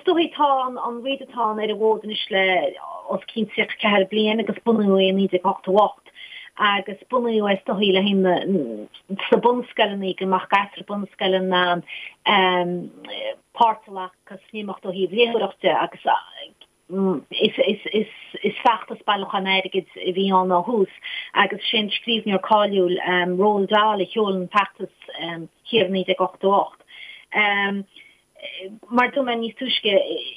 is dóichí tá an Readathon ar an bhfód anois le os cionn 34 bliain agus bunaíodh é i 1988 agus bunaíodh é is dóichí le haghaidh na sna bunscoileanna go mbeadh gasúir bunscoile in ann páirt a ghlacadh san imeacht ó thaobh léitheoireachta de agus Is feachtas bailiúcháin airgid a bhí ann ó thús agus sé an scríbhneoir cáiliúil Roald Dahl a sheol an feachtas thiar i 1988. Mar a dúirt mé níos túisce,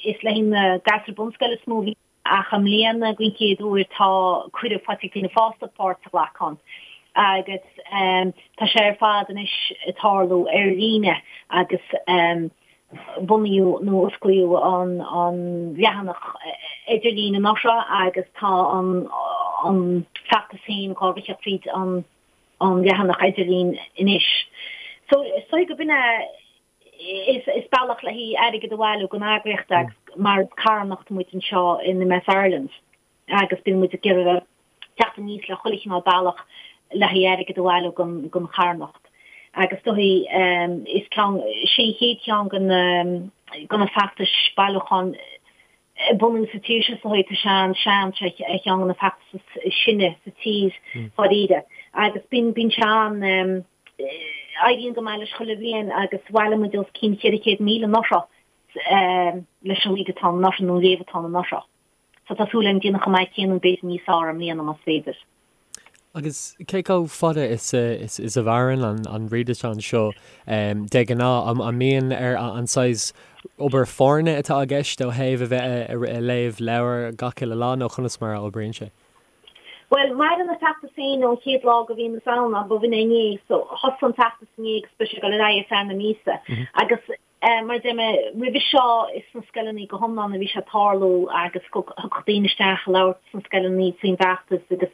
is le haghaidh na gasúir bunscoile is mó a bhí ach i mbliana den chéad uair tá cuireadh faighte ag daoine fásta páirt a ghlacadh ann agus tá sé ar fad anois ag tarlú ar líne agus bunaíodh nó osclaíodh an leathanach idirlín anuraidh agus tá an feachtas féin dhá ritheadh fríd an leathanach idirlín anois. So is dóigh go b'in é is bealach le haghaidh airgead a bhailiú don eagraíocht agus mar is carthanacht muid anseo in MS Ireland. agus bíonn muid ag iarraidh teacht aníos le chuile chineál bealach le haghaidh airgead a bhailiú don charthanacht. Agus is dóichí is ceann, sé an chéad cheann de na de na feachtais bailiúcháin a bunaíodh sa tír seo is dóichí, tá sé an-sean, sé ar cheann de na feachtais is sine sa tír dháiríre. Agus bíonn bíonn sé an, éiríonn go maith leis chuile bhliain agus bhailigh muid os cionn 400,000 anuraidh leis an Readathon anuraidh nó an Léamhathon anuraidh. So tá súil agam déanamh chomh maith céanna nó b'fhéidir níos fearr i mbliana más féidir. Agus cé chomh fada is is a mhaireann an Readathon seo de ghnáth? An mbíonn ar an saghas obair foirne atá i gceist ó thaobh a bheith ag léamh leabhar gach uile lá nó conas mar a oibríonn sé? Bhuel, maireann an feachtas féin ón chéad lá go bhíonn is ann, ba bh'in é inné, so thosaigh an feachtas inné agus beidh sé ag dul ar aghaidh ar feadh na míosa. Agus Mar a deir mé roimhe seo, is sna scoileanna go hiomlán a bhí sé ag tarlú agus thiocfadh daoine isteach ag labhairt sna scoileanna faoin bhfeachtas agus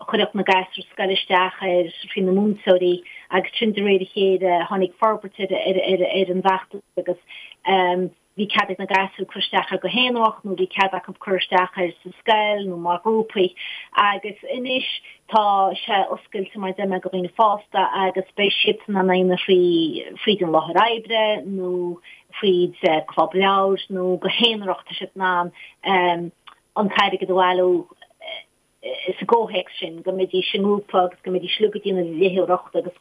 chuirfeadh na gasúir scoile isteach air faoi na múinteoirí agus sin de réir a chéile tháinig forbairt ar an bhfeachtas agus Bhí cead ag na gasúir cur isteach air go haonarach nó bhí cead acu cur isteach air sa scoil nó mar ghrúpaí agus anois tá sé oscailte mar a deir mé do dhaoine fásta agus beidh siadsan in ann a dhéanamh thrí fríd an láthair oibre nó fríd club leabhair nó go haonarach tá siad in ann an t-airgead a bhailiú sa gcomhthéacs sin, go mbeidís i ngrúpa agus go mbeidís uilig ag déanamh léitheoireacht agus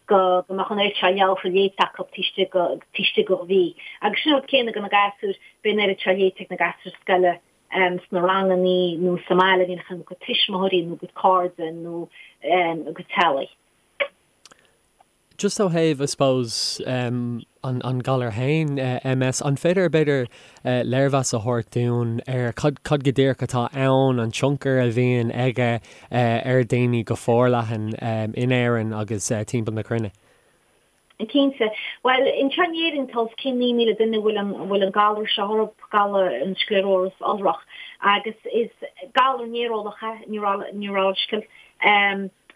go mbeadh an oiread seo leabhartha léite acu taobh istigh de mhí. Agus sin an rud céanna do na gasúir, beidh an oiread seo léite ag na gasúir scoile sna rangannaí nó sa mbaile, a bhíonn acu a gcuid tuismitheoirí nó a gcuid cairde nó a gcuid teaghlaigh. Just ó thaobh, I suppose, an an galar féin, MS, an féidir, b'fhéidir, léirmheas a thabhairt dúinn ar cad cad go díreach atá ann, an tionchar a bhíonn aige ar dhaoine go forleathan in Éirinn agus timpeall na cruinne? Cinnte. Bhuel, anseo in Éirinn tá os cionn 9,000 duine a bhfuil an a bhfuil an galar seo orthu, galar an scléaróis iolrach, agus is galar néareolach é, neurological,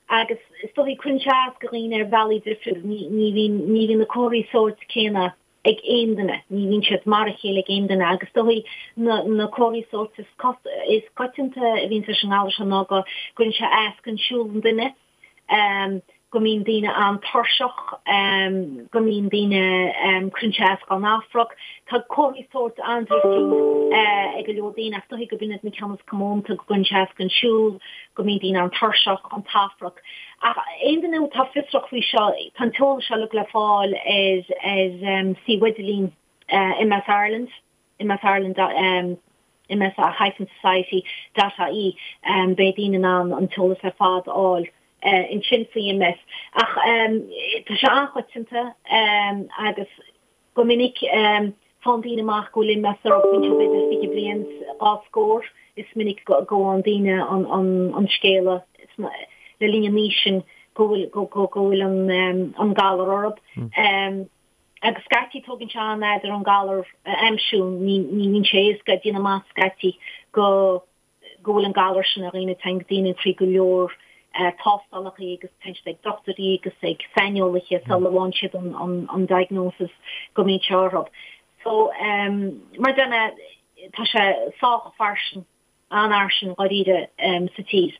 Agus is dóichí cuireann sé as do dhaoine ar bhealaí difriúil. Ní bhíonn, ní bhíonn na comharthaí sóirt céanna ag aon duine, ní bhíonn siad mar a chéile ag aon duine agus is dóichí na, na comharthaí sóirt is, is coitianta a bhíonn leis an ngalar seo ná go gcuireann sé as don siúl an duine, go mbíonn daoine an-tuirseach, go mbíonn daoine, cuireann sé as dá n-afrac. Tá comharthaí sóirt an-difriúil ag go leor daoine ach is dóichí gurb in iad na ceanna is comónta, go gcuireann sé as don siúl, go mbíonn daoine an-tuirseach, an t-afrac. Ach aon duine atá fiosrach faoi seo, tá an t-eolas seo uilig le fáil ar ar suíomh idirlín MS Ireland, MS Ireland MS hyphen society dot ie. Beidh daoine in ann an t-eolas ar fad a fháil ansin faoi MS. Ach tá sé an-choitianta agus Go minic, faigheann daoine amach go bhfuil MS orthu bíonn siad b'fhéidir 20 bliain dhá scór. Is minic go bhfaigheann daoine an scéala le linn an aois sin go bhfuil an galar orthu. Agus scaití tógann sé an-fhad ar an galar a aimsiú, ní bhíonn sé éasca déanamh amach scaití go go bhfuil an galar sin ar dhaoine, téann daoine trí go leor tástálacha agus téann siad ag dochtúirí agus ag saineolaithe sula bhfaigheann siad an diagnosis go mbíonn sé orthu. So, mar a deir mé, tá sé sách fairsing, an-fhairsing dháiríre sa tír.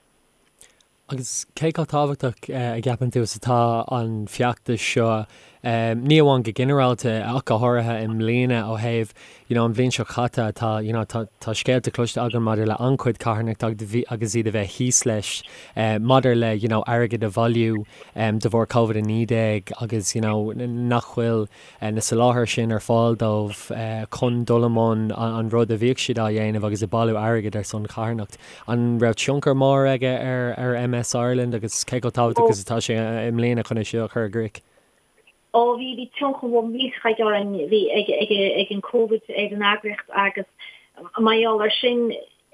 Agus cé chomh tábhachtach a gceapann tú is atá an feachtas seo? Ní amháin go ginearálta ach go háirithe i mbliana ó thaobh you know an bhliain seo caite tá you know tá tá scéalta cloiste againn maidir le an-chuid carthanachta agus iad a bheith thíos leis maidir le you know airgead a bhailiú de bharr Covid-19 agus you know nach bhfuil na soláthair sin ar fáil dóibh chun dul i mbun an rud a bhíodh siad á dhéanamh agus ag bailiú airgid ar son charthanacht. An raibh tionchar mór aige ar ar MS Ireland agus cé chomh tábhachtach is atá sé i mbliana chun é seo a chur i gcrích? Ó bhí, bhí tionchar mór millteach aige orainn, bhí ag, ag, ag an Covid ar an eagraíocht agus mar gheall ar sin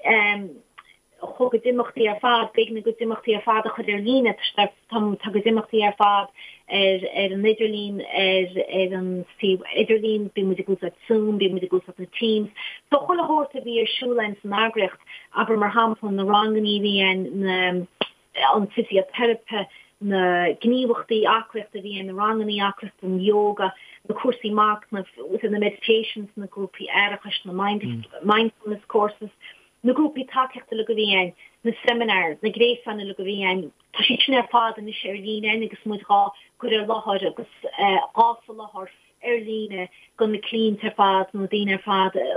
chuaigh a gcuid imeachtaí ar fad, b'éigean a gcuid imeachtaí ar fad a chur ar líne, tá, tá a gcuid imeachtaí ar fad ar, ar an idirlíon, ar, ar an suíomh idirlín, bíonn muid ag úsáid Zoom, bíonn muid ag úsáid na Teams. So chuile shórt a bhí ar siúl againn san eagraíocht, abair mar shampla na rangannaí a bhí againn, na, an fisioteiripe, na gníomhachtaí aclaíochta a bhí ann, na rangannaí aclaíochta, an yoga, na cúrsaí machnaimh, na meditations, na grúpaí aireachais, na mindfulness courses, na grúpaí tacaíochta uilig a bhí ann, na seminars, na gréasáin uilig a bhí ann, tá siad sin ar fad anois ar líne againn agus muid dhá gcur ar láthair agus dhá soláthar ar líne do na cliaint ar fad, na daoine ar fad a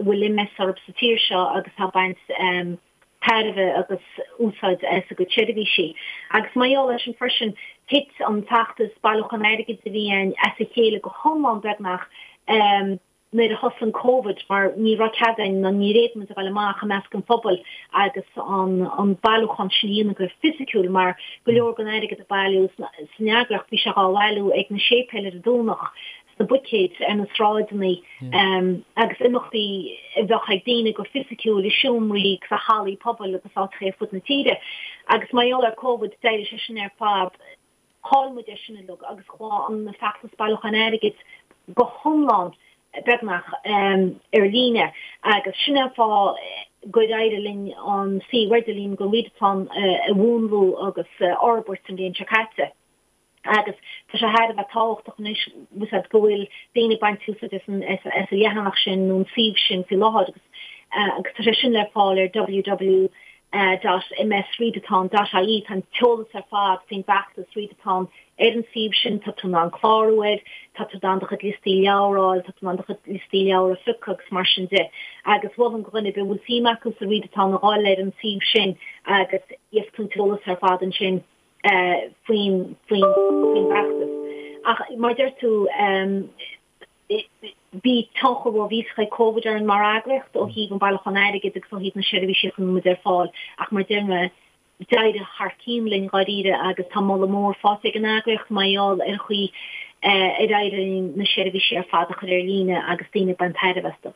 bhfuil MS orthu sa tír seo agus atá ag baint tairbhe agus úsáid as a gcuid seirbhísí. Agus mar gheall air sin freisin, thit an feachtas bailiúchán airgid a bhí ann as a chéile go hiomlán beagnach nuair a thosaigh an Covid mar ní raibh cead againn ná níor fhéad muid a ghabháil amach i measc an phobail agus an bailiúchán sin a dhéanamh go fisiciúil mar go leor den airgead a bailíodh san eagraíocht bhí sé dhá bhailiú ag na séipéil ar an Domhnach sna buicéid ar na sráideanna agus imeachtaí a bheadh ag daoine go fisiciúil i seomraí agus i hallaí pobail agus áiteacha ar fud na tíre. Agus mar gheall ar Covid d'éirigh sé sin ar fad, chaill muid é sin uilig agus chuaigh an feachtas bailiúcháin airgid go hiomlán beagnach ar líne agus sin é an fáth gur éirigh linn an suíomh idirlín don Readathon a mhúnlú agus a fhorbairt an bhliain seo caite. agus tá sé thar a bheith tábhachtach anois bhfuil fhios a'd go bhfuil daoine ag baint úsáid as an as an leathanach sin nó an suíomh sin faoi láthair agus agus tá sé sin le fáil ar www dot msreadathon dot ie tá an t-eolas ar fad faoin bhfeachtas Readathon ar an suíomh sin tá tú in ann clárú air tá tú in ann do chuid liostaí leabhar a fháil tá tú in ann do chuid liostaí leabhar a phiocadh agus mar sin de agus mholfainn do dhuine ar bith a bhfuil suim acu sa Readathon a dhul ar an suíomh sin agus gheobhaidh tú an t-eolas ar fad ansin. faoin bhfeachtas. Ach mar a deir tú, bhí tionchar mhór mhillteach ag Covid orainn mar eagraíocht ó thaobh an bailiúchán airgid agus ó thaobh na seirbhísí a chuir muid ar fáil ach mar a deir mé, d'éirigh thar cionn linn dháiríre agus tá moladh mór faighte ag an eagraíocht mar gheall ar an chaoi ar éirigh linn na seirbhísí ar fad a chur ar líne agus daoine ag baint tairbhe astu.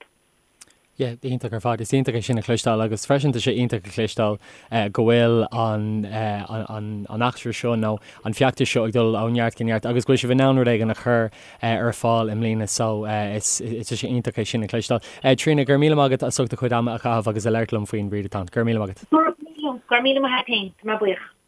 Yeah, iontach ar fad. Is iontach é sin a chloisteáil agus freisin tá sé iontach a chloisteáil go bhfuil an an an eachtra seo nó an feachtas seo ag dul ó neart go neart agus go bhfuil sibh in ann rud éigin a chur ar fáil i mbliana so is tá sé iontach é sin a chloisteáil. Tríona, go raibh míle maith agat as ucht do chuid ama a chaitheamh agus a labhairt liom faoin Readathon. Go raibh míle maith agat. Go raibh míle maith agat féin. Tá mé buíoch.